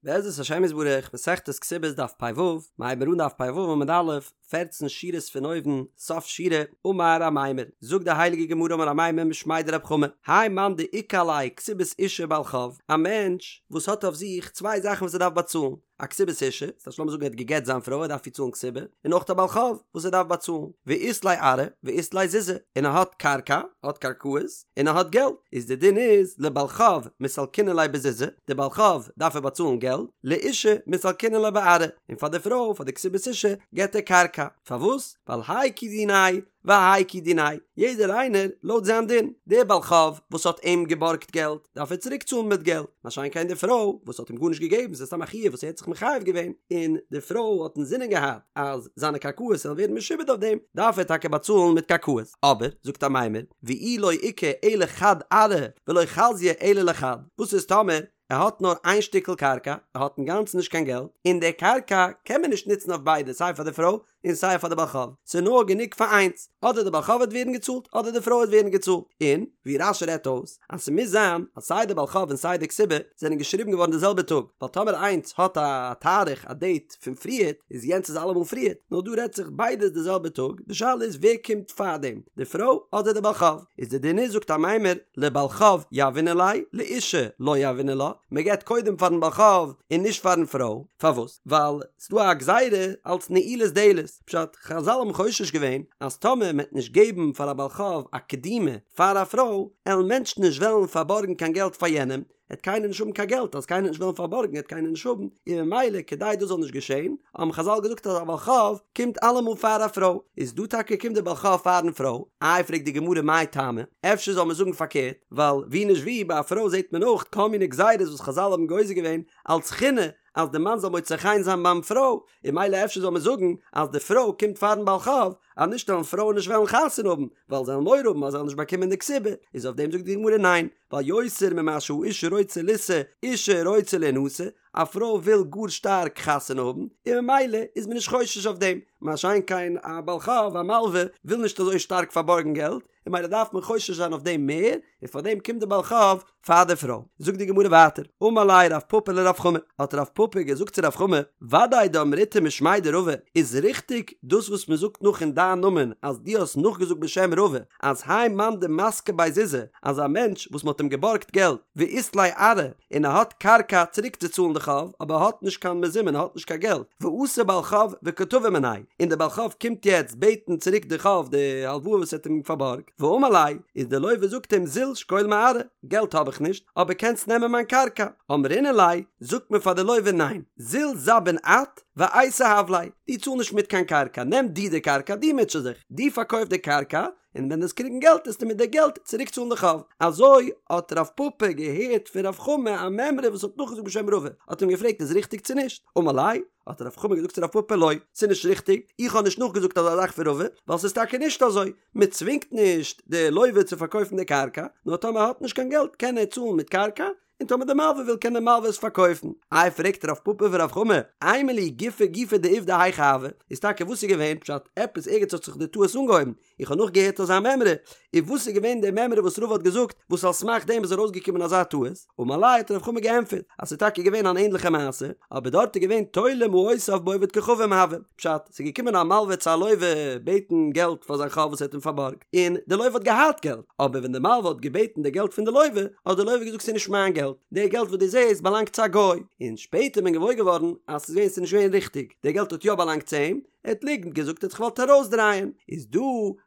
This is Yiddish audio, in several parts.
בעזרת השם יתברך, מסכת כתובות דף פ"ו, מ'הייבט אן דף פ"ו עמוד א', פערצן שורות פון אויבן, סוף שורה, אמר אמימר, זאגט די הייליגע גמרא אמר אמימר משמיה דרב חמא, האי מאן דאיכא עליה כתובת אשה ובעל חוב, א מענטש וואס האט אויף זיך צוויי זאכן וואס ער דארף באצאלן, א כתובת אשה, ס'טייטש לאמיר זאגן ער האט גע'גט זיין פרוי ער דארף איר צאלן כתובה, און אויך א בעל חוב וואס ער דארף באצאלן, ואית ליה ארעא ואית ליה זוזי, און ער האט קרקע, ער האט קרקעות, און ער האט געלט, איז די דין איז לבעל חוב מסלקינן ליה בזוזי, די בעל חוב דארף ער באצאלן געלט, לאשה מסלקינן לה בארעא, און פאר די פרוי פאר די כתובת אשה געט ער קרקע, פארוואס? ווייל האי כי דיניה והאי כי דיניה, יעדער איינער לויט זיין דין, דער בעל חוב וואס האט אים געבארגט געלט דארף ער צוריק צאלן מיט געלט, מה שאין כן די פרוי וואס האט אים גארנישט געגעבן ס'איז סתם א חיוב וואס ער האט זיך מחייב געווען, און די פרוי האט אינזינען געהאט אז זיינע קרקעות זאלן ווערן משועבד אויף דעם, דארף ער טאקע באצאלן מיט קרקעות, אבער, זאגט אמימר, ואי לא איכא אלא חד ארעא ולא חזיא אלא לחד, וואס איז טאמער ער האט נאר איין שטיקל קרקע, ער האט אינגאנצן נישט קיין געלט, און די קרקע קען מען נישט נוצן אויף ביידע סיי פאר די פרוי און סיי פאר די בעל חוב, ס'איז נאר גענוג פאר איינס, אדער די בעל חוב וועט ווערן געצאלט אדער די פרוי וועט ווערן געצאלט, און ווי רש"י רעדט אויס אז ס'מוז זיין אז סיי די בעל חוב און סיי די כתובה זענען געשריבן געווארן די זעלבע טאג, ווייל טאמער איינס האט א תאריך א דעיט פון פריערט איז יענץ איז אלעמאל פריערט, נאר דא רעדט זיך ביידע איז די זעלבע טאג, די שאלה איז ווער קומט פארדעם די פרוי אדער די בעל חוב, איז די דין איז זאגט אמימר לבעל חוב יהבינן ליה לאשה לא יהבינן לה, מ'געבט קודם פארן בעל חוב און נישט פארן פרוי, פארוואס? ווייל ס'דא א גזירה אלץ נעילת דלת, פשט, חזל האבן חושש געווען אז טאמער מ'עט נישט געבן פאר א בעל חוב א קדימה פאר א פרוי, עלן מענטשן נישט וועלן פארבארגן קיין געלט פאר יענעם, עט קיינער נישט האבן קיין געלט, אז קיינער נישט וועלן פארבארגן עט קיינער נישט האבן, און ממילא כדי דאס זאל נישט געשען, האבן חזל געזאגט אז א בעל חוב קומט אלעמאל פאר א פרוי, איז דא טאקע קומט די בעל חוב פארן פרוי, איי פרעגט די גמרא מאי טעמא, אפשר זאל מען זאגן פארקערט, ווייל ווי נישט ווי ביי א פרוי זעט מען אויך כל מיני גזירות וואס חזל האבן גוזר געווען אלץ חינא, אז די מאן זאל מוצא חן זיין ביים פרוי, און ממילא אפשר זאל מען זאגן אז די פרוי קומט פארן בעל חוב, אז נישט וועלן פרויען נישט וועלן חתונה האבן, ווייל זיי וועלן מורא האבן אז זיי וועלן נישט באקומען די כתובה, איז אויף דעם זאגט די גמרא ניין, ווייל יותר ממה שהאיש רוצה לישא, אישה רוצה לינשא, א פרוי וויל גאר שטארק חתונה האבן, און ממילא איז מען נישט חושש אויף דעם, מה שאין כן א בעל חוב, א מלווה, וויל נישט אזוי שטארק פארבארגן געלט, און ממילא דארף מען חושש זיין אויף דעם מער, און פאר דעם קומט די בעל חוב פאר די פרוי. זאגט די גמרא ווייטער, אמר ליה רב פפא לרב חמא, האט רב פפא געזאגט צו רב חמא, ודאי דאמריתו משמיה דרבא, איז ריכטיג דאס וואס מען זאגט נאך אין דיין נאמען אז דו האסט נאכגעזאגט בשם רבא, אז האי מאן דמסקי ביה זוזי, אז א מענטש וואס מען האט אים געבארגט געלט, ואית ליה ארעא, און ער האט קרקע צוריקצוצאלן די חוב, אבער ער האט נישט קיין מזומן, ער האט נישט קיין געלט, ואתא בעל חוב וקא תבע מיניה, און דער בעל חוב קומט יעצט בעטן צוריק די חוב, די הלוואה וואס ער האט אים פארבארגט, ואמר ליה, איז דער לווה זאגט אים זיל שקול מארעא, געלט האב איך נישט, אבער קענסט נעמען מיין קרקע, אמרינן ליה, זאגט מען פאר די לווה ניין, זיל זבין את, ואייתי הב ליה, דו צאל נישט מיט קיין קרקע, נעם דו די קרקע, דו מוטשע זיך, דו פארקויף די קרקע, און ווען דו וועסט קריגן געלט וועסטו מיט די געלט צוריק צאלן די חוב. אזוי האט רב פפא געהערט פון רב חמא א מימרא וואס האט נאכגעזאגט בשם רבא, האט אים געפרעגט איז ריכטיג צו נישט, אמר ליה, האט רב חמא געזאגט צו רב פפא לא, ס'איז נישט ריכטיג, איך האב נישט נאכגעזאגט אזא זאך פון רבא, ווייל ס'איז טאקע נישט אזוי, מען צווינגט נישט די לווה צו פארקויפן די קרקע, נאר טאמער ער האט נישט קיין געלט קען ער צאלן מיט קרקע, און טאמער די מלווה וויל קען די מלווה עס פארקויפן. איי פרעגט רב פפא פון רב חמא, אימא לי גופא גופא דעובדא היכי הוה, איז טאקע וואס איז געווען פשט, עפעס ערגעץ האט זיך די טעות אנגעהויבן, איך האב נאכגעהערט אזא מימרא, און וואס איז געווען די מימרא וואס רבא האט געזאגט וואס על סמך דעם איז ארויסגעקומען אזא טעות, אמר ליה האט רב חמא געענטפערט אז ס'איז טאקע געווען אן ענדליכע מעשה, אבער דארט איז געווען תולה מעותיו בעובד כוכבים הוה, פשט, ס'איז געקומען א מלווה צו א לווה בעטן געלט פאר זיין חוב וואס ער האט אים פארבארגט, און די לווה האט געהאט געלט, אבער ווען די מלווה האט געבעטן די געלט פון די לווה, האט די לווה געזאגט ס'איז נישט מיין געלט, די געלט וואס דו זעסט באלאנגט צו א גוי, און שפעטער איז מען געוואויר געווארן אז ס'איז געווען ס'איז נישט געווען ריכטיג, די געלט האט יא באלאנגט צו אים, ער האט ליגנט געזאגט ער האט זיך געוואלט ארויסדרייען, איז דא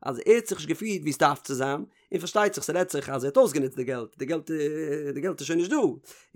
אז ער האט זיך נישט געפירט ווי עס דארף צו זיין, און פארשטייט זיך ס'רעדט זיך אז ער האט אויסגענוצט די געלט, די געלט די געלט איז שוין נישט דא,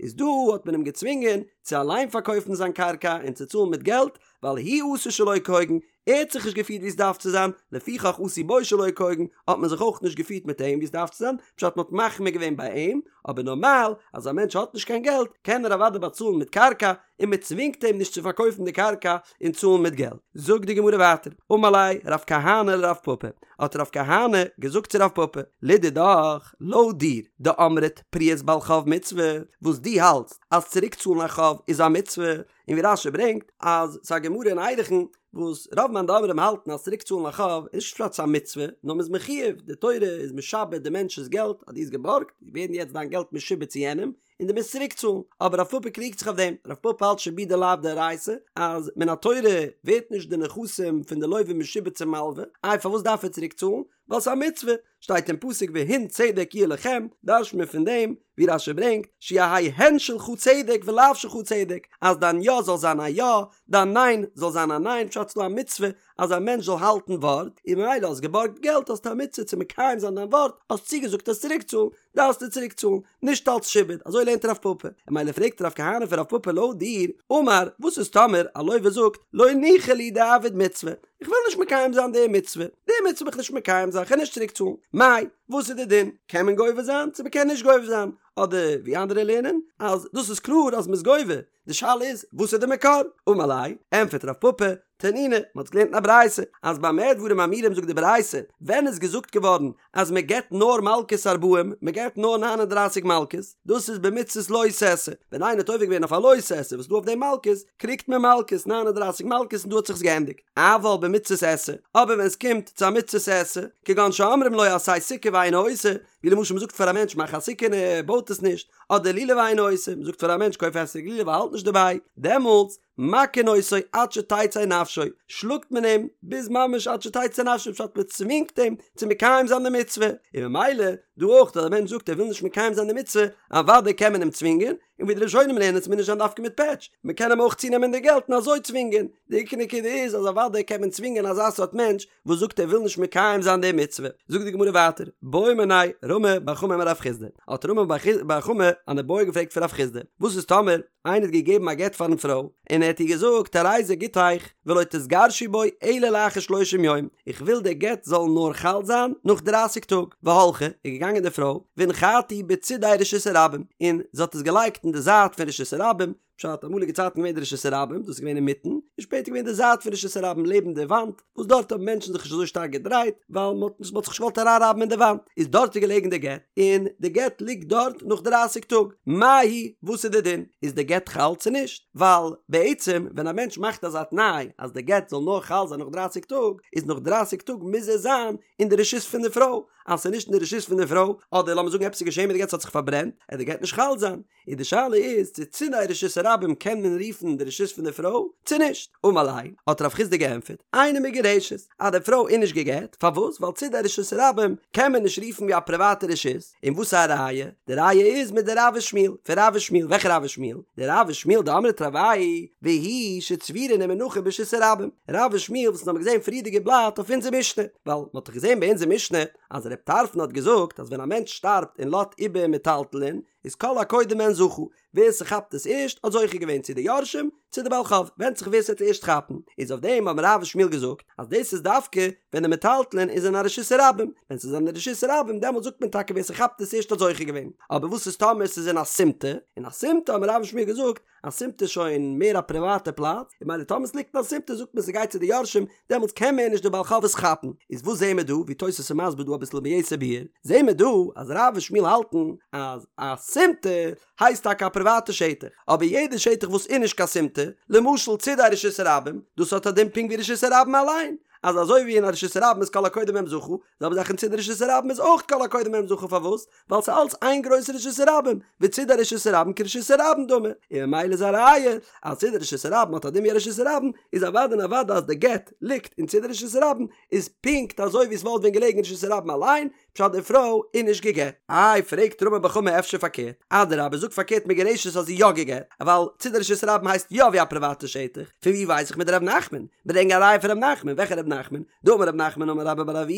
איז דא האט מען אים געצווינגען צו אליין פארקויפן זיין קרקע און צו צאלן מיט געלט, ווייל הוא עשה שלא כהוגן, ער האט זיך נישט געפירט ווי עס דארף צו זיין, לפיכך עשו בו שלא כהוגן, האט מען זיך אויך נישט געפירט מיט אים ווי עס דארף צו זיין, פשט מען האט מחמיר געווען ביי אים, אבער נארמאל אז א מענטש האט נישט קיין געלט קען ער אוודאי באצאלן מיט קרקע, און מען צווינגט אים נישט צו פארקויפן די קרקע און צאלן מיט געלט. זאגט די גמרא ווייטער, אמר ליה רב כהנא לרב פפא, האט רב כהנא געזאגט צו רב פפא, לדידך, לויט דיר, דאמרת פריעת בעל חוב מצוה, וואס דו האלטסט אז צוריק צאלן א חוב איז א מצוה, און ווי רש"י ברענגט אז ס'איז א גמרא אין ערכין וואס רוב מאן דאמרים האלטן אז צוריק צאלן א חוב איז נישט פשט ס'איז א מצוה, נאר מ'איז מחויב, די תורה איז משעבד די מענטש'ס געלט, אז דו האסט געבארגט, ווערן יעצט דיין געלט משועבד צו יענעם, און דו מוזט צוריק צאלן, אבער רב פפא קריגט זיך אויף דעם, רב פפא האלט שעבודא לאו דאורייתא, אז מן התורה ווערט נישט די נכסים פון די לווה משועבד צום מלווה, איי פארוואס דארף ער צוריק צאלן? ווייל ס'איז א מצוה, שטייט אין פסוק והן צדק יהיה לכם, דרש'ט מען פון דעם, ווי רש"י ברענגט, שיהא הן שלך צדק ולאו שלך צדק, אז דיין יא זאל זיין א יא, דיין ניין זאל זיין א ניין, פשט ס'דא א מצוה אז א מענטש זאל האלטן ווארט, און ממילא האסט געבארגט געלט האסטו א מצוה צו מקיים זיין דיין ווארט, האסט צוגעזאגט עס צוריקצאלן, דארפסטו צוריקצאלן, נישט אלץ שעבוד, אזוי לערנט רב פפא, און ממילא פרעגט רב כהנא פון רב פפא לויט דיר, אמר, וואס איז טאמער א לווה זאגט, לא ניחא לי דאעביד מצוה, איך וויל נישט מקיים זיין די מצוה, די מצוה וויל איך נישט מקיים זיין, כ'גיי נישט צוריקצאלן, מאי, וואס איז די דין, קען מען גובה זיין צו מ'קען נישט גובה זיין, אדער ווי אנדערע לערנען, אז דאס איז קלאר אז מ'איז גובה, די שאלה איז, וואס איז די מקור? אמר ליה, ענטפערט רב פפא, תנינא, מען האט געלערנט אין א ברייתא, אז במה דברים אמורים זאגט די ברייתא, ווען איז געזאגט געווארן אז מען געבט נאר מלקות ארבעים, מען געבט נאר ניין און דרייסיג מלקות, דאס איז במצות לא תעשה, ווען איינער האט עובר געווען אויף א לא תעשה וואס איז דא אויף דעם מלקות, קריגט מען מלקות, ניין און דרייסיג מלקות און דא האט זיך עס געענדיגט. אבל במצות עשה, אבער ווען עס קומט צו א מצות עשה, כגון שאומרים לו עשה סוכה ואינו עושה, ווי למשל מען זאגט פאר א מענטש מאך א סוכה און ער בויט עס נישט, אדער לולב ואינו עושה, מען זאגט פאר א מענטש קויף אתרוג לולב ער האלט נישט דערביי, דעמאלטס, מכין אותו עד שתצא נפשו, שלאגט מען אים ביז ממש עד שתצא נפשו, פשט מען צווינגט אים צו מקיים זיין די מצוה, און ממילא דא אויך אז א מענטש זאגט ער וויל נישט מקיים זיין די מצוה, אוודאי קען מען אים צווינגען, און ווי די ראשונים לערנען עס מוז נישט זיין דווקא מיט פעטש, מען קען אים אויך צונעמען די געלט און אזוי צווינגען, די עיקר נקודה איז אז אוודאי קען מען צווינגען אזא סארט מענטש וואס זאגט ער וויל נישט מקיים זיין די מצוה, זאגט די גמרא ווייטער, בעא מיניה רמי בר חמא מרב חסדא, האט רמי בר חמא אן איבעיא געפרעגט פון רב חסדא, וואס איז טאמער איינער האט געגעבן א גט פארן פרוי, און ער האט איר געזאגט הרי זה גיטך ולא תתגרשי בו אלא לאחר שלושים יום, איך וויל דער גט זאל נאר חל זיין נאך דרייסיג טאג, והלכה, איז געגאנגען די פרוי, והנחתו בצידי רשות הרבים, און זי האט עס געלייגט אין די זייט פון רשות הרבים, פשט, אמאליגע צייטן געווען די רשות הרבים, דאס איז געווען אינמיטן, און שפעטער געווען די זייט פון רשות הרבים לעבן די וואנט, וואס דארט האבן מענטשן זיך נישט אזוי שטארק געדרייט, ווייל מען האט זיך נישט געוואלט אריינרייבן אין די וואנט, איז דארט איז געלעגן די גט, און די גט ליגט דארט נאך דרייסיג טאג, מהו, וואס איז די דין? איז די גט חל צו נישט? ווייל בעצם ווען א מענטש מאכט אזא תנאי אז די גט זאל נאר חל זיין נאך דרייסיג טאג, איז נאך דרייסיג טאג מוז ער זיין אין די רשות פון די פרוי, אז ס'איז נישט אין די רשות פון די פרוי, אדער לאמיר זאגן עפעס איז געשען מיט די גט ס'האט זיך פארברענט, עט די גט נישט חל זיין. און די שאלה איז צו צידי רשות הרבים קען מען רופן די רשות פון די פרוי צו נישט. אמר ליה, האט רב חסדא געענטפערט, אינה מגורשת, אז די פרוי איז נישט גע'גט, פארוואס? ווייל צידי רשות הרבים קען מען נישט רופן ווי א פריוואטע רשות, און וואס איז א ראיה? די ראיה איז מדרב ושמואל, פון רב ושמואל, וועלכע רב ושמואל? דרב ושמואל דאמרי תרוייהו והוא שצבורין ומונחין ברשות הרבים, רב ושמואל וואס אונז האבן געזען פריערדיגע בלאט אויף אונזער משנה, ווייל מען האט דאך געזען ביי אונזער משנה אז רב טרפון האט געזאגט אז ווען א מענטש שטארבט און לאזט איבער מטלטלין, איז כל הקודם בהן זכה, ווער ס'כאפט עס ערשט האט זוכה געווען צו די יורשים צו די בעל חוב, ווענדט זיך ווער ס'וועט ערשט כאפן, איז אויף דעם האבן רב ושמואל געזאגט אז דאס איז דווקא ווען די מטלטלין איז אין א רשות הרבים, ווען ס'איז אין א רשות הרבים דעמאלט זאגט מען טאקע ווער ס'כאפט עס ערשט האט זוכה געווען, אבער וואס איז טאמער ס'איז אין א סימטא, אין א סימטא האבן רב ושמואל געזאגט א סימטא איז שוין מער א פריוואטע פלאץ, און ממילא טאמער ס'ליגט אין א סימטא זאגט מען ס'גייט צו די יורשים, דעמאלטס קען מער נישט די בעל חוב עס כאפן. איז וואס זעהן מיר דא, ווי תוס' איז מסביר דא אביסל ביתר ביאור, זעהן מיר דא אז רב ושמואל האלטן אז א סימטא הייסט טאקע א פריוואטע שטח, אבער יעדע שטח וואס איז נישט קיין סימטא, למשל צידי רשות הרבים, דאס האט א דין פונקט ווי רשות הרבים אליין, אז אזוי ווי אין א רשות הרבים איז כל הקודם בהם זכה, זעלבע זאך אין צידי רשות הרבים איז אויך כל הקודם בהם זכה, פארוואס? ווייל ס'איז אלץ איין גרויסע רשות הרבים, וצידי רשות הרבים כרשות הרבים דמי, און ממילא איז א ראיה אז צידי רשות הרבים האט א דין ווי א רשות הרבים, איז אוודאי און אוודאי אז די גט ליגט אין צידי רשות הרבים איז פונקט אזוי ווי עס וואלט ווען געלעגן אין רשות הרבים אליין, פשט די פרוי איז נישט גע'גט. איי פרעגט רמי בר חמא אפשר פארקערט, אדרבה זאג פארקערט מגורשת אז זי יא גע'גט, ווייל צידי רשות הרבים הייסט יא ווי א פריוואטע שטח, פון ווי ווייס איך מדרב נחמן? ברענג א ראיה פון ר' נחמן, וועלכע ר' נחמן? דאמר ר' נחמן אמר רבה בר אבוה,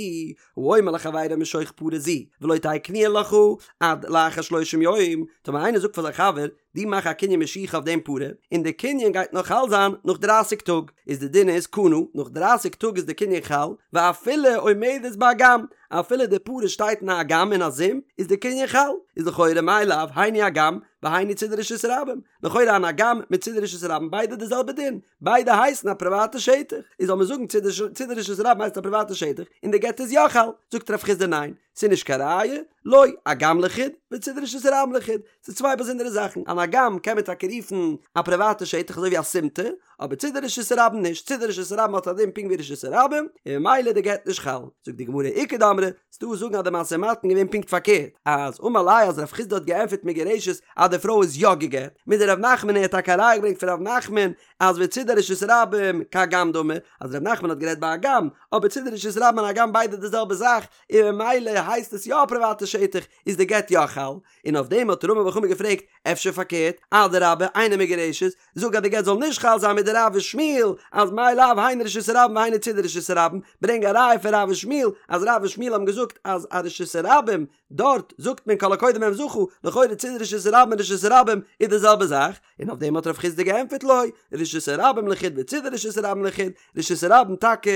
האומר לחבירו משוך פרה זו ולא תהא קנויה לך עד לאחר שלושים יום, טאמער איינער זאגט פאר זיין חבר, דו מאך א קנין משיכה אויף דעם פרה, און די קנין גייט נאר חל זיין נאך דרייסיג טאג, איז די דין איז קנה, נאך דרייסיג טאג איז די קנין חל, ואפילו עומדת באגם, אפילו די פרה שטייט אין א אגם אין א זומפ, איז די קנין חל, איז לכאורה מאי לאו היינו אגם והיינו צידי רשות הרבים, לכאורה אן אגם מיט צידי רשות הרבים ביידע די זעלבע דין, ביידע הייסן א פריוואטע שטח, איז זאל מען זאגן צידי רשות הרבים הייסט א פריוואטע שטח און די גט איז יא חל, זאגט רב חסדא ניין, ס'איז נישט קיין ראיה, לא, אגם לחוד, וצידי רשות הרבים לחוד, ס'איז צוויי באזונדערע זאכן, אן אגם קען מען טאקע רופן א פריוואטע שטח אזוי ווי א סימטא, אבער צידי רשות הרבים נישט, צידי רשות הרבים האט א דין פונקט ווי רשות הרבים, און ממילא די גט נישט חל. זאגט די גמרא איכא דאמרי, ס'דא וואס זאגן אז די משא ומתן געווען פונקט פארקערט, אז אמר ליה אז רב חסדא האט געענטפערט מגורשת אז די פרוי איז יא גע'גט, מדרב נחמן ער האט טאקע א ראיה געברענגט פון רב נחמן אז וצידי רשות הרבים כאגם דמי, אז רב נחמן האט גערעדט ביי אגם, אבער צידי רשות הרבים און אגם ביידע די זעלבע זאך, און ממילא הייסט עס יא א פריוואטע שטח, איז די גט יא חל, און אויף דעם האט רמי בר חמא געפרעגט, אפשר פארקערט, אדרבה אינה מגורשת, זאג אז די גט זאל נישט חל זיין מדרב ושמואל, אז מאי לאו היינו רשות הרבים והיינו צידי רשות הרבים, ברענג א ראיה פון רב ושמואל, אז רב ושמואל האבן געזאגט אז א רשות הרבים, דארט זאגט מען כל הקודם בהם זכה, לכאורה צידי רשות הרבים און רשות הרבים איז די זעלבע זאך, און אויף דעם האט רב חסדא געענטפערט לא, רשות הרבים לחוד וצידי רשות הרבים לחוד, רשות הרבים טאקע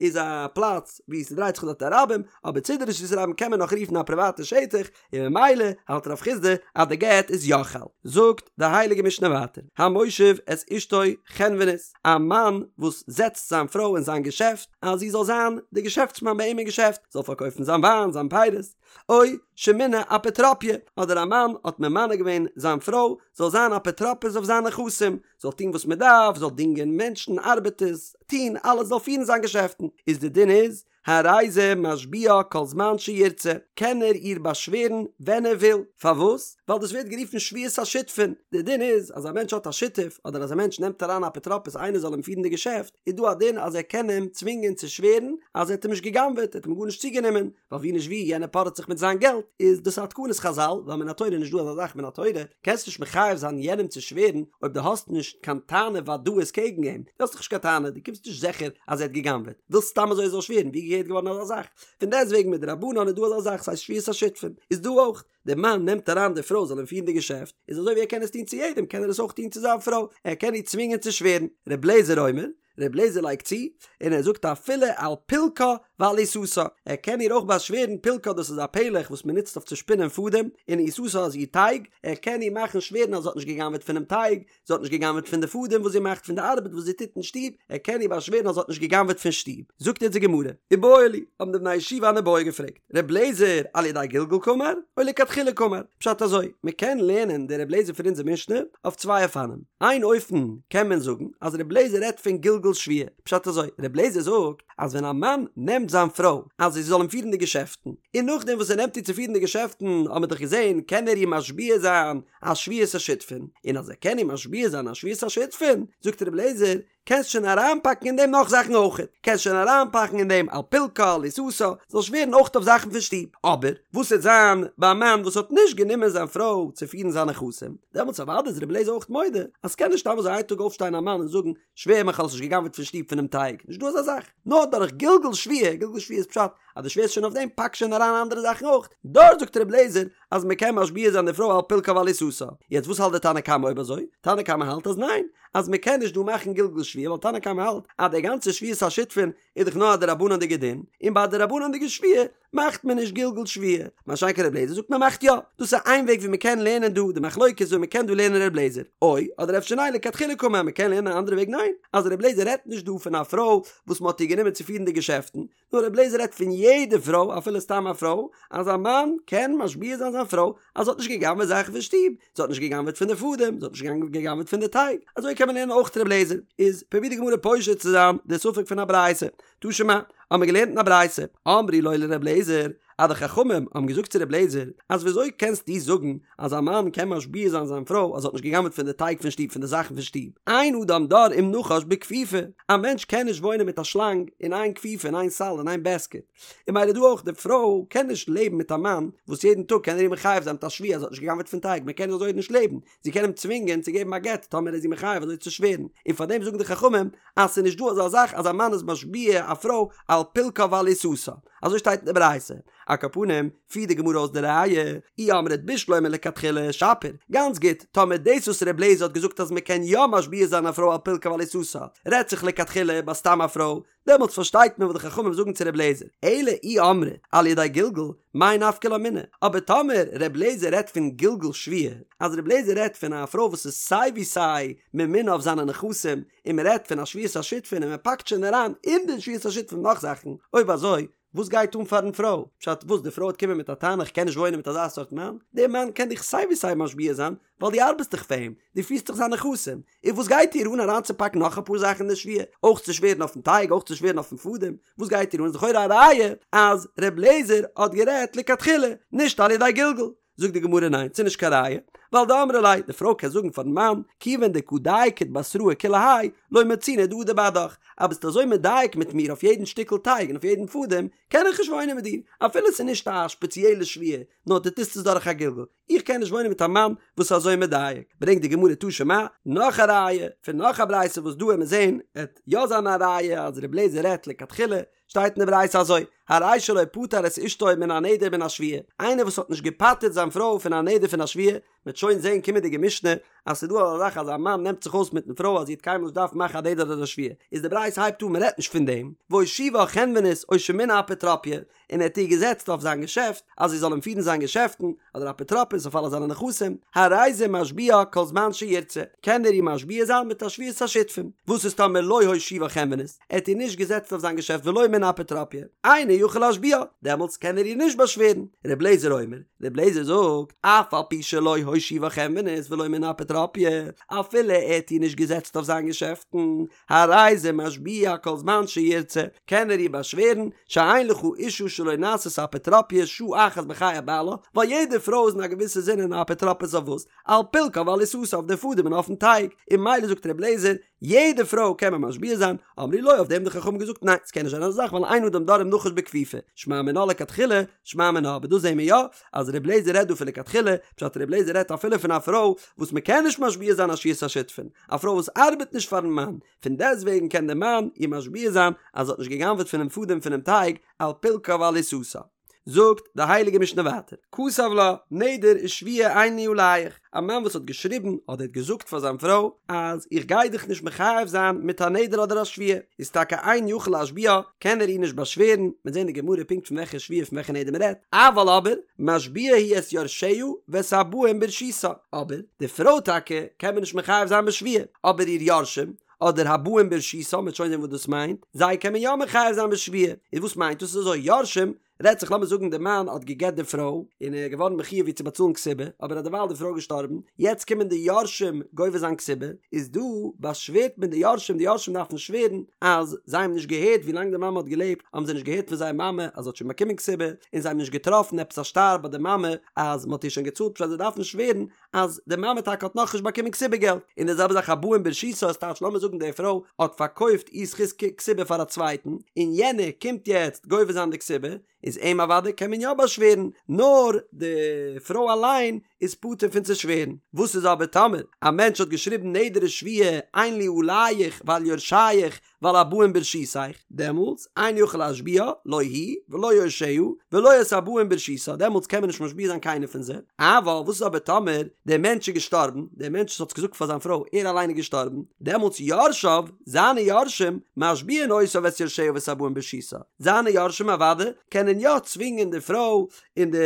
איז א פלאץ וואו ס'דרייט זיך דארט א רבים, אבער צידי רשות הרבים קען מען נאך רופן א פריוואטע שטח, און ממילא האלט רב חסדא אז די גט איז יא חל. זאגט די הייליגע משנה ווייטער, המושיב את אשתו חנונית, א מאן וואס זעצט זיין פרוי אין זיין געשעפט אז זי זאל זיין די געשעפטסמאן ביי אים אין געשעפט, זאל פארקויפן זיין וויין, זיין פירות, או שמינה אפוטרופיא, אדער א מאן האט ממנה געווען זיין פרוי זאל זיין אפוטרופוס אויף זיינע נכסים, זאל טון וואס מען דארף, זאל דינגען מענטשן, ארבעטערס, טון אלעס, זאל פירן זיין געשעפטן, איז די דין איז, הרי זה משביעה כל זמן שירצה, קען ער איר באשווערן ווען ער וויל, פארוואס? ווייל דאס ווערט גערופן שבועת השותפין, די דין איז אז א מענטש האט א שותף, אדער אז א מענטש נעמט אריין א אפוטרופוס איינער זאל אים פירן די געשעפט, איז דא א דין אז ער קען אים צווינגען צו שווערן אז ער האט אים נישט גע'גנב'עט, ער האט אים גארנישט צוגענומען, ווייל ווי נישט ווי יענער פארעט זיך מיט זיין געלט, איז דאס א תקנת חזל, ווייל מן התורה איז נישט דא אזא זאך מן התורה, קענסט נישט מחייב זיין יענעם צו שווערן אויב דו האסט נישט קיין טענה ודאית קעגן אים, דו האסט דאך נישט קיין טענה, דו קומסט נישט זיכער אז ער האט גע'גנב'עט, ווילסט סתם אזוי ער זאל שווערן, ווי געהערט געווארן אזא זאך? פון דעסטוועגן מדרבנן איז דא אזא זאך ס'הייסט שבועת השותפין, איז דא אויך, דער מאן נעמט אריין די פרוי זאל אים פירן די געשעפט, איז אזוי ווי ער קען עס טון צו יעדעם קען ער עס אויך טון צו זיין פרוי, ער קען איר צווינגען צו שווערן, ר' לעזער אומר, ר' לעזער לייגט צו, און ער זאגט אפילו על פילקה ועל עיסתה, ער קען איר אויך באשווערן, פילקה דאס איז א פלך וואס מען נוצט אויף צו שפינען פאדעם, און עיסתה איז איר טייג, ער קען איר מאכן שווערן אז זי האט נישט גע'גנב'עט פונעם טייג, זי האט נישט גע'גנב'עט פון די פאדעם וואס זי מאכט, פון די ארבעט וואס זי טוט אין שטוב, ער קען איר באשווערן אז זי האט נישט גע'גנב'עט פון שטוב. זאגט יעצט די גמרא, איבעיא להו, האבן די בני ישיבה אן איבעיא געפרעגט, ר' לעזער על ידי גלגול קאמר, או לכתחילה קאמר? פשט אזוי, מען קען לערנען די ר' לעזער פון אונזער משנה אויף צוויי אופנים. איין אופן קען מען זאגן אז ר' לעזער רעדט פון גלגול שבועה, פשט אזוי, ר' לעזער זאגט אז ווען א מאן נעמט זיין פרוי אז זי זאל אים פירן די געשעפטן, און נאכדעם וואס ער נעמט איר צו פירן די געשעפטן האט מען דאך געזען קען ער איר משביע זיין א שבועת השותפין, און אז ער קען איר משביע זיין א שבועת השותפין, זאגט ר' לעזער, קענסט שוין אריינפאקן אין דעם נאך זאכן אויכעט, קענסט שוין אריינפאקן אין דעם על פילקה, על עיסתה, זאל שווערן אויכט אויף זאכן פון שטוב. אבער, וואס וועט זיין ביי א מאן וואס האט נישט גענומען זיין פרוי צו פירן זיינע נכסים, דעמאלטס אוודאי איז רבי אליעזר אויכט מודה אז ס'קען נישט סתם אזוי איין טאג אויפשטיין א מאן און זאגן, שווער מיך האסט נישט גע'גנב'עט פון שטוב פונעם טייג, נישט דא אזא זאך, נאר דורך גלגול שבועה, גלגול שבועה איז פשט אז דו שווערסט שוין אויף דעם פאק שוין אריין אנדערע זאכן אויך, דארט זאגט רבי אליעזר אז מען קען משביע זיין די פרוי על פילקה ועל עיסתה, יעצט וואס האלט די תנא קמא אויב אזוי? תנא קמא האלט אז ניין, אז מען קען נישט דא מאכן גלגול שבועה ווייל תנא קמא האלט אז די גאנצע שבועת השותפין איז דאך נאר א דרבנן'דיגע דין, און ביי א דרבנן'דיגע שבועה מאכט מען נישט גלגול שבועה, מה שאין כן רבי אליעזר זאגט מען מאכט יא, דאס איז איין וועג ווי מען קען לערנען דא די מחלוקת ווי מען קען דא לערנען רבי אליעזר, או אדער אפשר ניין לכתחילה קאמר מען קען לערנען א אנדערע וועג ניין, אז רבי אליעזר רעדט נישט דא פון א פרוי וואס מען האט איר גענומען צו פירן די געשעפטן, נאר רבי אליעזר רעדט פון יעדע פרוי אפילו סתם א פרוי, אז א מאן קען משביע זיין זיין פרוי אז זי האט נישט גע'גנב'עט זאכן פון שטוב, זי האט נישט גע'גנב'עט פון די פאדעם, זי האט נישט גע'גנב'עט פון די טייג, אזוי קען מען לערנען אויך רבי אליעזר, איז פרובירט די גמרא פושט צו זיין די ספק פון א ברייתא, תא שמע, האבן מיר געלערנט אין א ברייתא, אמרו לו לרבי אליעזר, אז די חכמים האבן געזאגט צו רבי אליעזר, אז ווי אזוי קענסטו זאגן אז א מאן קען משביע זיין זיין פרוי אז זי האט נישט גע'גנב'עט פון די טייג פון שטוב פון די זאכן פון שטוב, אין אדם דר עם נחש בכפיפה, א מענטש קען נישט וואוינען מיט א שלאנג אין איין כפיפה אין איין סל אין איין בעסקעט, און ממילא דא אויך די פרוי קען נישט לעבן מיט א מאן וואס יעדן טאג קען ער איר מחייב זיין מיט א שבועה אז זי האט נישט גע'גנב'עט פון טייג, מען קען אזוי נישט לעבן, זי קען אים צווינגען צו געבן א גט טאמער איז זי מחייב אזוי צו שווערן, און פאר דעם זאגן די חכמים אז ס'איז נישט דא אזא זאך אז א מאן איז משביע א פרוי על פילקה ועל עיסתה, אזוי שטייט אין די ברייתא. על כל פנים, פירט די גמרא אויס די ראיה, אי אמרת בשלמא לכתחילה שפיר, גאנץ גוט, טאמער דאס וואס ר' לעזער האט געזאגט אז מ'קען יא משביע זיין א פרוי על פילקה ועל עיסתה, רעדט זיך לכתחילה ביי סתם א פרוי, דעמאלטס פארשטייט מען וואס די חכמים זאגן צו ר' לעזער, אלא אי אמרת על ידי גלגול, מאי נפקא לה מינה, אבער טאמער ר' לעזער רעדט פון גלגול שבועה, אז ר' לעזער רעדט פון א פרוי וואס איז סיי ווי סיי ממונה אויף זיינע נכסים, און מען רעדט פון א שבועת השותפין און מען פאקט שוין אריין אין די שבועת השותפין נאך זאכן, אויב אזוי. וואס גייט אן פארן פרוי? פשט וואס די פרוי וועט קומען מיט א טענה איך קען נישט וואוינען מיט אזא סארט מאן? דער מאן קען דיך סיי ווי סיי משביע זיין ווייל דו ארבעסט דאך פאר אים, דו פירסט דאך זיינע נכסים, און וואס גייט איר אן אריינצופאקן נאך אפאר זאכן אין די שבועה, אויך צו שווערן אויפן טייג אויך צו שווערן אויפן פאדעם, וואס גייט איר אן? איז לכאורה א ראיה אז ר' לעזער האט גערעדט לכתחילה, נישט על ידי גלגול. זאגט די גמרא ניין, ס'איז נישט קיין ראיה, ווייל דאמרה ליה, די פרוי קען זאגן פארן מאן, כיוון דקא דייקת בתראי כולי האי, לא מצינא דאדור בהדך, אז ביסט אזוי מדייק מיט מיר אויף יעדן שטיקל טייג און אויף יעדן פאדעם, קען איך נישט וואוינען מיט דיר, אפילו ס'איז נישט א שפעציעלע שבועה, נאר דו טוסט עס דורך א גלגול. איך קען נישט וואוינען מיט א מאן וואס איז אזוי מדייק. ברענגט די גמרא תא שמע, נאך א ראיה, פון נאך א ברייתא וואס דא וועט מען זען, עט יא זיין א ראיה אז ר' לעזער רעדט לכתחילה, שטייט אין די ברייתא אזוי, הרי שלא פטר את אשתו מן הנדר ומן השבועה, איינער וואס האט נישט געפטר'ט זיין פרוי פון א נדר פון א שבועה, מ'וועט שוין זען קומענדיגע משנה אז ס'איז דא אזא זאך אז א מאן נעמט זיך אויס מיטן פרוי אז זי וועט קיינמאל נישט דארפן מאכן א נדר אדער א שבועה, איז די ברייתא הייבט אן מ'רעדט נישט פון דעם, והושיבה חנונית או שמינה אפוטרופיא, און ער האט איר געזעצט אויף זיין געשעפט אז זי זאל אים פירן זיין געשעפטן, אדער אפוטרופוס אויף אלע זיינע נכסים, הרי זה משביעה כל זמן שירצה, קען ער איר משביע זיין מיט א שבועת השותפים. וואס איז טאמער לא הושיבה חנונית, ער האט איר נישט געזעצט אויף זיין געשעפט ולא מינה אפוטרופיא, אינו יכול להשביעה, דעמאלטס קען ער איר נישט באשווערן. ר' לעזער אומר, ר' לעזער זאגט, אף על פי שלא הושיבה חנונית ולא מינה אפוטרופיא, אפילו ער האט איר נישט געזעצט אויף זיין געשעפטן, הרי זה משביע כל זמן שירצה, קען ער איר באשווערן, שאין לך אישה שלא נעשית אפוטרופיא שעה אחת בחיי בעלה, ווייל יעדע פרוי איז אין א געוויסע זין אן אפוטרופוס אויף וואס? על פילקה ועל עיסתה אויף די פאדעם און אויפן טייג, און ממילא זאגט ר' אליעזר, יעדע פרוי קען מען משביע זיין, אמרו לו אויף דעם האבן די חכמים געזאגט ניין ס'קען נישט זיין אזא זאך ווייל אין אדם דר עם נחש בכפיפה, שמע מינה לכתחילה, שמע מינה, אבער דא זעהן מיר יא אז ר' אליעזר רעדט דא פון לכתחילה, פשט ר' אליעזר רעדט אפילו פון א פרוי וואס מ'קען נישט משביע זיין א שבועת השותפין, א פרוי וואס ארבעט נישט פארן מאן, פון דעסטוועגן קען דער מאן איר משביע זיין אז זי האט נישט גע'גנב'עט פונעם פאדעם פונעם טייג על פילקה ועל עיסתה. זאגט די הייליגע משנה ווייטער, כתב לה, נדר ושבועה אין לי עליך, א מאן וואס האט געשריבן אדער האט געזאגט פאר זיין פרוי אז איך גיי דיך נישט מחייב זיין מיט א נדר אדער א שבועה, איז טאקע אין יכול להשביעה, קען ער איר נישט באשווערן, מ'וועט זען אין די גמרא פונקט פון וועלכע שבועה פון וועלכע נדר מ'רעדט, אבל אבער, משביע הוא את יורשיה ואת הבאים ברשותה, אבער די פרוי טאקע קען מען נישט מחייב זיין בשבועה, אבער איר יורשים, אדער הבאים ברשותה, מ'וועט שוין זען וואס דאס מיינט, זיי קען מען יא מחייב זיין בשבועה, איז וואס מיינט דאס? איז אזוי, יורשים, רעדט זיך לאמיר זאגן די מאן האט גע'גט די פרוי, און ער איז געווארן מחויב איר צו באצאלן כתובה, אבער אדערווייל די פרוי געשטארבן, יעצט קומען די יורשים גובה זיין כתובה, איז דא באשווערט מען די יורשים, די יורשים דארפן שווערן אז זיי האבן נישט געהערט ווי לאנג די מאמע האט געלעבט האבן זיי נישט געהערט פון זייער מאמע אז זי האט שוין באקומען כתובה, און זיי האבן נישט געטראפן עפעס א שטר ביי די מאמע אז מען האט איר שוין געצאלט, פשט זיי דארפן שווערן אז די מאמע טאקע האט נאכנישט באקומען כתובה געלט, און די זעלבע זאך הבאים ברשותה איז טייטש לאמיר זאגן די פרוי האט פארקויפט איר זכות כתובה פאר א צווייטן, און יענער קומט יעצט גובה זיין די כתובה, איז אים אוודאי קען מען יא באשווערן, נאר די פרוי אליין איז פטור פון צו שווערן. וואס איז אבער טאמער א מענטש האט געשריבן נדר ושבועה אין לי עליך ועל יורשיך ועל הבאים ברשותיך, דעמאלטס אין יכול להשביעה לא היא ולא יורשיה ולא את הבאים ברשותה, דעמאלטס קען מען נישט משביע זיין קיינער פון זיי, אבל וואס איז אבער טאמער דער מענטש איז געשטארבן, דער מענטש וואס האט געזאגט פאר זיין פרוי ער אליין איז געשטארבן, דעמאלטס יורשיו, זיינע יורשים, משביעין אותה ואת יורשיה ואת הבאים ברשותה, זיינע יורשים אוודאי קענען יא צווינגען די פרוי און די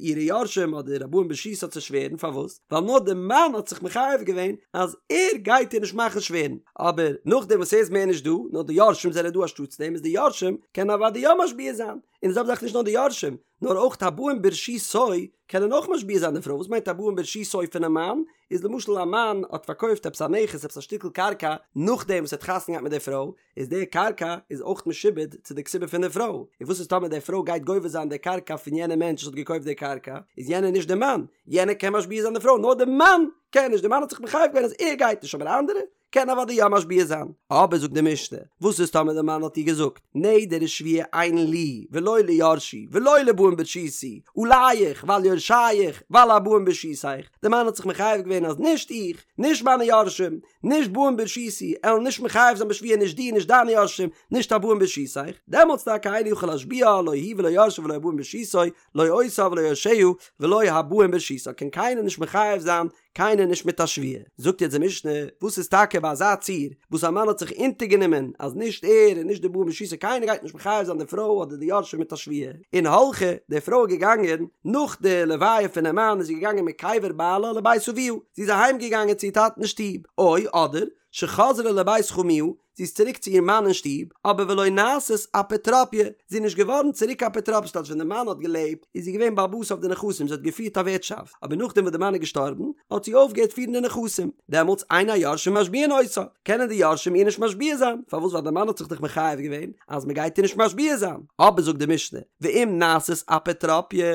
אירע יורשים אדער הבאים ברשותה צו שווערן, פארוואס? ווייל נאר די מאן האט זיך מחייב געווען אז ער גייט איר נישט מאכן שווערן, אבער נאכדעם וואס ער איז מער נישט דא, נאר די יורשים זענען דא אנשטאטס דעם, איז די יורשים קענען אוודאי יא משביע זיין, און די זעלבע זאך נישט נאר די יורשים, נאר אויך הבאים ברשותו קענען אויך משביע זיין די פרוי, וואס מיינט הבאים ברשותו פונעם מאן? איז למשל א מאן האט פארקויפט עפעס א נכס עפעס א שטיקל קרקע נאכדעם וואס ער האט חתונה געהאט מיט די פרוי, איז די קרקע איז אויך משועבד צו די כתובה פון די פרוי, און וואס איז טאמער די פרוי גייט גובה זיין די קרקע פון יענע מענטש וואס האט געקויפט די קרקע, איז יענער נישט די מאן, יענער קען משביע זיין די פרוי, נאר די מאן קען נישט, די מאן האט זיך מחייב געווען אז ער גייט נישט, אבער אנדערע קענען אוודאי יא משביע זיין. אבער זאגט די משנה, וואס איז טאמער די מאן האט איר געזאגט, נדר ושבועה אין לי ולא ליורשי ולא לבאים ברשותי, עליך ועל יורשיך ועל הבאים ברשותיך, די מאן האט זיך מחייב געווען אז נישט איך, נישט מיינע יורשים, נישט באים ברשותי, עלן נישט מחייב זיין בשבועה נישט דיר נישט דיינע יורשים, נישט הבאים ברשותיך, דעמאלטס טאקע אינו יכול להשביעה לא היא ולא יורשיה ולא הבאים ברשותה, לא אותה ולא יורשיה ולא הבאים ברשותה, קען קיינער נישט מחייב זיין קיינער נישט מיט א שבועה. זאגט יעצט די משנה, וואס איז טאקע ביי אזא ציור וואס א מאן האט זיך אונטערגענומען אז נישט ער און נישט די באים ברשותו קיינער גייט נישט מחייב זיין די פרוי אדער די יורשים מיט א שבועה, און הלכה, די פרוי איז געגאנגען, נאך די לוויה פונעם מאן איז זי געגאנגען מקבר בעלה לבית אביה, זי איז אהיים געגאנגען צו איר טאטן אין שטוב, או אדער, שחזרה לבית חמיה, זי איז צוריק צו איר מאן אין שטוב, אבער ולא נעשית אפוטרופיא, זי איז נישט געווארן צוריק אפוטרופוס, ס'טייטש ווען די מאן האט געלעבט איז זי געווען בעל הבית אויף די נכסים, זי האט געפירט א ווירטשאפט, אבער נאכדעם וואס די מאן איז געשטארבן האט זי אויפגעהערט פירן די נכסים, דעמאלטס אין היורשים משביעין אותה, קענען די יורשים איר נישט משביע זיין, פארוואס ווייל די מאן האט זיך דאך מחייב געווען אז מען גייט איר נישט משביע זיין, אבער זאגט די משנה, ואם נעשית אפוטרופיא,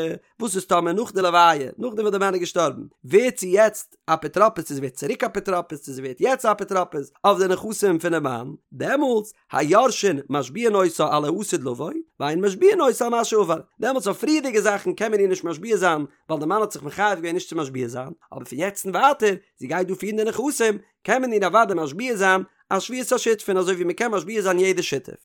וואס איז טאמער נאך די לוויה, נאכדעם וואס די מאן איז געשטארבן, ווערט זי יעצט אפוטרופוס צו זי ווערט צוריק אפוטרופוס צו זי ווערט יעצט אפוטרופוס אויף די נכסים פונעם מאן, דעמאלטס היורשין משביעין אותה על העתיד לבוא, ואין משביעין אותה על מה שעבר, דעמאלטס אויף פריערדיגע זאכן קען מען איר נישט משביע זיין ווייל די מאן האט זיך מחייב געווען נישט צו משביע זיין, אבער פון יעצט און ווייטער, זי גייט דא פירן די נכסים, קען מען איר אוודאי משביע זיין א שבועת השותפין אזוי ווי מען קען משביע זיין יעדע שותף.